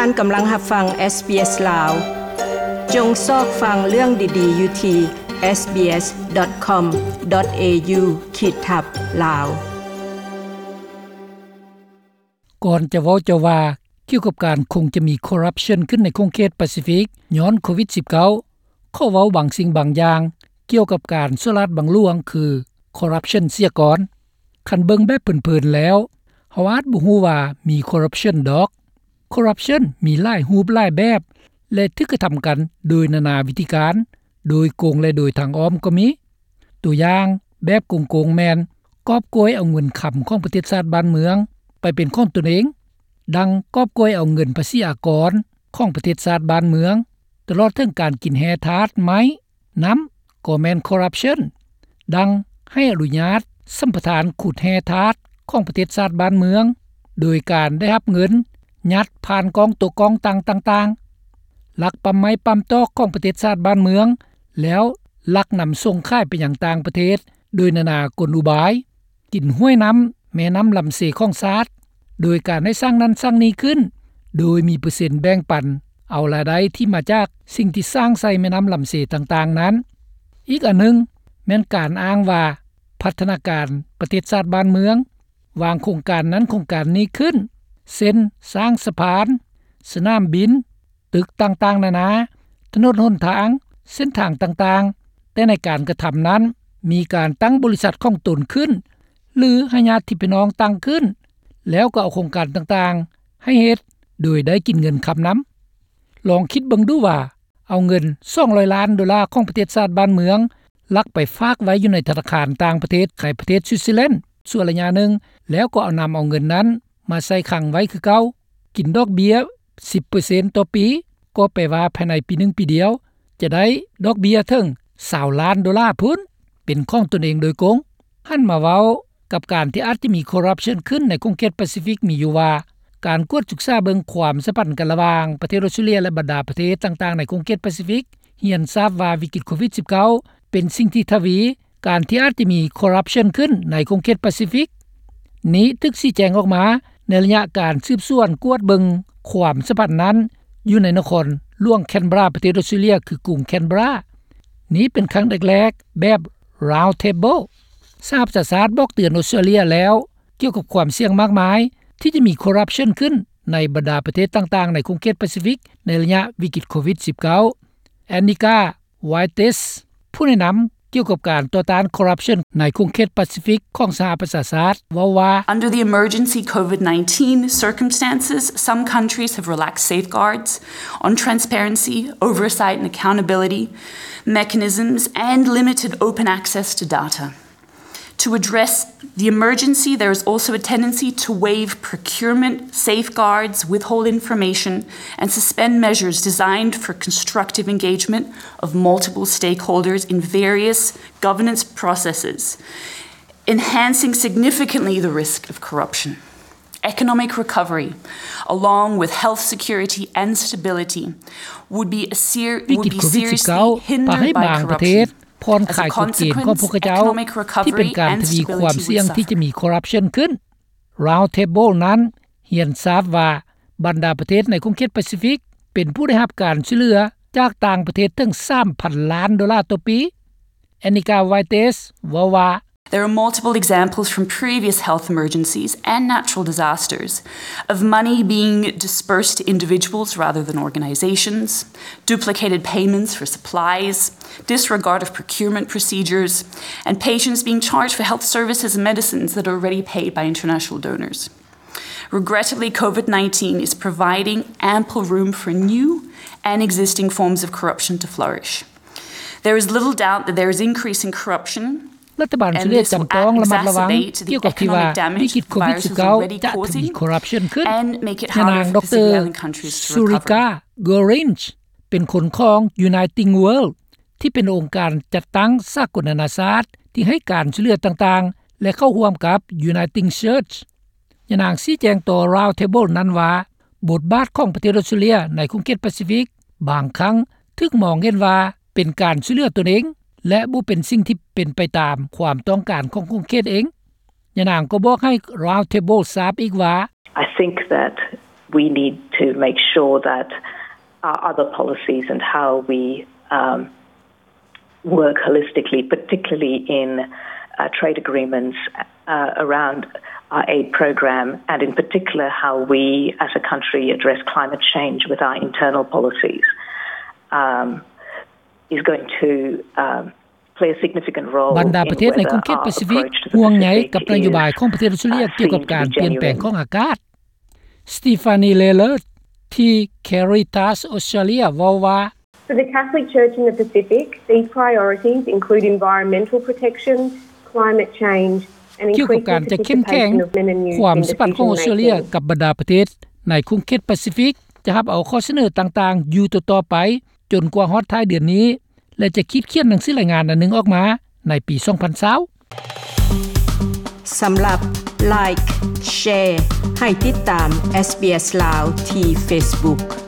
ທ່ານກຳລັງຮັບຟັງ SBS ລາວ. ຈົ່ງຊອກຟັງເລື່ອງດີໆຢູ່ທີ່ SBS.com.au ຂີດທັບ ລາວ. ກ່ອນຈະເວົ້າຈະວ່າກ່ຽວກັບການຄົງຈະມີຄໍຣັບຊັນຂຶ້ນໃນຂົງເຂດປາຊີຟິກຍ້ອນໂຄວິດສິບເກົ້າ ຂໍເວົ້າບາງສິ່ງບາງຢ່າງກ່ຽວກັບການສໍ້ລາດບັງຫຼວງ ຄືຄໍຣັບຊັນເສຍກ່ອນ. ຄັນເບິ່ງແບບເພີນໆແລ້ວ ເຮົາອາດບໍ່ຮູ້ວ່າມີຄໍຣັບຊັນດອກ. ຄໍຣັບຊັນມີຫຼາຍຮູບຫຼາຍແບບ ແລະ ຖືກກະທຳກັນໂດຍນານາວິທີການ, ໂດຍກົງ ແລະ ໂດຍທາງອ້ອມກໍມີ. ຕົວຢ່າງແບບກົງໆແມ່ນກອບໂກຍເອົາເງິນຄຳຂອງປະເທດຊາດບ້ານເມືອງໄປເປັນຂອງຕົນເອງ, ດັ່ງກອບໂກຍເອົາເງິນພາສີອາກອນຂອງປະເທດຊາດບ້ານເມືອງ, ຕະຫຼອດເຖິງການກິນແຮ່ທາດໄມ້ ນຳກໍແມ່ນຄໍຣັບຊັນ, ດັ່ງໃຫ້ອະນຸຍາດສຳປະທານຂຸດແຮ່ທາດຂອງປະເທດຊາດບ້ານເມືອງ ໂດຍການໄດ້ຮັບເງິນຍັດຜ່ານກ້ອງໂຕະກອງຕ່າງໆ, ລັກປ້ຳໄມ້ປ້ຳຕອກຂອງປະເທດຊາດບ້ານເມືອງ ແລ້ວລັກນຳສົ່ງຂາຍໄປຍັງຕ່າງປະເທດໂດຍນານາກົນອຸບາຍ. ກິນຫ້ວຍນ້ຳແມ່ນ້ຳລຳເຊຂອງຊາດ ໂດຍການໃຫ້ສ້າງນັ້ນສ້າງນີ້ຂຶ້ນ ໂດຍມີເປີເຊັນແບ່ງປັນເອົາລາຍໄດ້ທີ່ມາຈາກສິ່ງທີ່ສ້າງໃສ່ແມ່ນ້ຳລຳເຊຕ່າງໆນັ້ນ. ອີກອັນໜຶ່ງແມ່ນການອ້າງວ່າພັດທະນາການປະເທດຊາດບ້ານເມືອງ ວາງໂຄງການນັ້ນໂຄງການນີ້ຂຶ້ນ ເຊັ່ນ ສ້າງສະພານ, ສະໜາມບິນ, ຕຶກຕ່າງໆນານາ, ຖະໜົນຫົນທາງ, ເສັ້ນທາງຕ່າງໆ, ແຕ່ໃນການກະທຳນັ້ນ ມີການຕັ້ງບໍລິສັດຂອງຕົນຂຶ້ນ ຫຼື ໃຫ້ຍາດຕິພີ່ນ້ອງຕັ້ງຂຶ້ນ ແລ້ວກໍເອົາໂຄງການຕ່າງໆໃຫ້ເຮັດ ໂດຍໄດ້ກິນເງິນຄຳນຳ. ລອງຄິດເບິ່ງດູວ່າ ເອົາເງິນສອງຮ້ອຍລ້ານໂດລາຂອງປະເທດຊາດບ້ານເມືອງ ລັກໄປຝາກໄວ້ຢູ່ໃນທະນາຄານຕ່າງປະເທດ ໃນປະເທດສະວິດເຊີແລນ ຊົ່ວໄລຍະໜຶ່ງ ແລ້ວກໍນຳເອົາເງິນນັ້ນມາໃສ່ຄັງໄວ້ຄືເກົ່າ, ກິນດອກເບ້ຍສິບເປີເຊັນຕໍ່ປີ, ກໍແປວ່າພາຍໃນປີໜຶ່ງປີດຽວ ຈະໄດ້ດອກເບ້ຍເຖິງຊາວລ້ານໂດລາພຸ້ນ ເປັນຂອງຕົນເອງໂດຍກົງ. ຫັນມາເວົ້າກັບການທີ່ອາດຈະມີຄໍຣັບຊັນຂຶ້ນໃນຂົງເຂດປາຊີຟິກ ມີຢູ່ວ່າ ການກວດສຶກສາເບິ່ງຄວາມສຳພັນກັນລະຫວ່າງປະເທດອອສເຕຣເລັຍ ແລະ ບັນດາປະເທດຕ່າງໆໃນຂົງເຂດປາຊີຟິກ ຮຽນຊາບວ່າວິກິດໂຄວິດສິບເກົ້າ ເປັນສິ່ງທີ່ທະວີ ການທີ່ອາດຈະມີຄໍຣັບຊັນຂຶ້ນໃນຂົງເຂດປາຊີຟິກ. ນີ້ຖືກຊີ້ແຈງອອກມາໃນໄລຍະການສືບສວນກວດເບິ່ງຄວາມສຳພັນນັ້ນ ຢູ່ໃນນະຄອນຫຼວງແຄນເບຣາ ປະເທດອອສເຕຣເລັຍ ຄືກຸງແຄນເບຣາ. ນີ້ເປັນຄັ້ງແລກໆແບບ Round Table. ສະຫະປະຊາຊາດບອກເຕືອນອອສເຕຣເລັຍແລ້ວ ກ່ຽວກັບຄວາມສ່ຽງມາກມາຍທີ່ຈະມີຄໍຣັບຊັນຂຶ້ນໃນບັນດາປະເທດຕ່າງໆໃນຂົງເຂດປາຊີຟິກ ໃນໄລຍະວິກິດໂຄວິດສິບເກົ້າ. ແອນນິກາ ວາຍເຕັສ ຜູ້ແນະນຳກ່ຽວກັບການຕໍ່ຕ້ານຄໍຣັບຊັນໃນຂົງເຂດປາຊີຟິກຂອງສະຫະປະຊາຊາດ ເວົ້າວ່າ Under the emergency COVID nineteen circumstances, some countries have relaxed safeguards on transparency, oversight and accountability mechanisms and limited open access to data. To address the emergency, there is also a tendency to waive procurement safeguards, withhold information, and suspend measures designed for constructive engagement of multiple stakeholders in various governance processes, enhancing significantly the risk of corruption. Economic recovery, along with health security and stability, would be a ser- would be seriously hindered by corruption. ຜ່ອນຄາຍກົດເກນຂອງພວກເຂົາເຈົ້າ ທີ່ເປັນການທະວີຄວາມສ່ຽງທີ່ຈະມີຄໍຣັບຊັນຂຶ້ນ. Round Table ນັ້ນຮຽນຊາບວ່າ ບັນດາປະເທດໃນຂົງເຂດປາຊີຟິກ ເປັນຜູ້ໄດ້ຮັບການຊ່ວຍເຫຼືອຈາກຕ່າງປະເທດເຖິງສາມພັນລ້ານໂດລາຕໍ່ປີ. ແອນນິກາ ວາຍເຕັສ ເວົ້າວ່າ There are multiple examples from previous health emergencies and natural disasters of money being dispersed to individuals rather than organizations, duplicated payments for supplies, disregard of procurement procedures, and patients being charged for health services and medicines that are already paid by international donors. Regrettably, COVID nineteen is providing ample room for new and existing forms of corruption to flourish. There is little doubt that there is increasing corruption. ລັດຖະບານສະຫະລັດຈຳຕ້ອງລະມັດລະວັງກ່ຽວກັບທີ່ວ່າ ວິກິດໂຄວິດສິບເກົ້າ ຈະທະວີຄໍຣັບຊັນຂຶ້ນ. ຍານາງ ດຣ ຊູຣິກາ ໂກຣິນ ເປັນຄົນຂອງ Uniting World ທີ່ເປັນອົງການຈັດຕັ້ງສາກົນນານາຊາດ ທີ່ໃຫ້ການຊ່ວຍເຫຼືອຕ່າງໆ ແລະ ເຂົ້າຮ່ວມກັບ Uniting Church. ຍານາງຊີ້ແຈງຕໍ່ Round Table ນັ້ນວ່າ ບົດບາດຂອງປະເທດອອສເຕຣເລັຍໃນຂົງເຂດປາຊີຟິກ ບາງຄັ້ງຖືກມອງເຫັນວ່າເປັນການຊ່ວຍເຫຼືອຕົນເອງ ແລະ ບໍ່ເປັນສິ່ງທີ່ເປັນໄປຕາມຄວາມຕ້ອງການຂອງຂົງເຂດເອງ. ຍານາງກໍບອກໃຫ້ Round Table ຊາບອີກວ່າ I think that We need to make sure that our other policies and how we um, work holistically, particularly in uh, trade agreements uh, around our aid program, and in particular how we as a country address climate change with our internal policies, um, is going to um, play a significant role ບັນດາປະເທດໃນຂົງເຂດປາຊີຟິກ ຫ່ວງໃຍກັບນະໂຍບາຍຂອງປະເທດອອສເຕຣເລັຽກ່ຽວກັບການປ່ຽນແປງຂອງອາກາດ. Stephanie Lalor ທີ່ Caritas Australia ເວົ້າວ່າ For the Catholic Church in the Pacific, these priorities include environmental protection, climate change, and ກ່ຽວກັບການຈະເຂັ້ມແຂງ ຄວາມສຳພັນຂອງອອສເຕຣເລັຽກັບບັນດາປະເທດໃນຂົງເຂດປາຊີຟິກ ຈະຮັບເອົາຂໍ້ສະເໜີຕ່າງໆຢູ່ຕໍ່ໆໄປ ຈົນກວ່າຮອດທ້າຍເດືອນນີ້ ແລະ ຈະຂີດຂຽນໜັງສືລາຍງານອັນໜຶ່ງອອກມາໃນປີສອງພັນຊາວ. ສຳລັບ Like, Share ໃຫ້ຕິດຕາມ SBS Lao ທີ່ Facebook.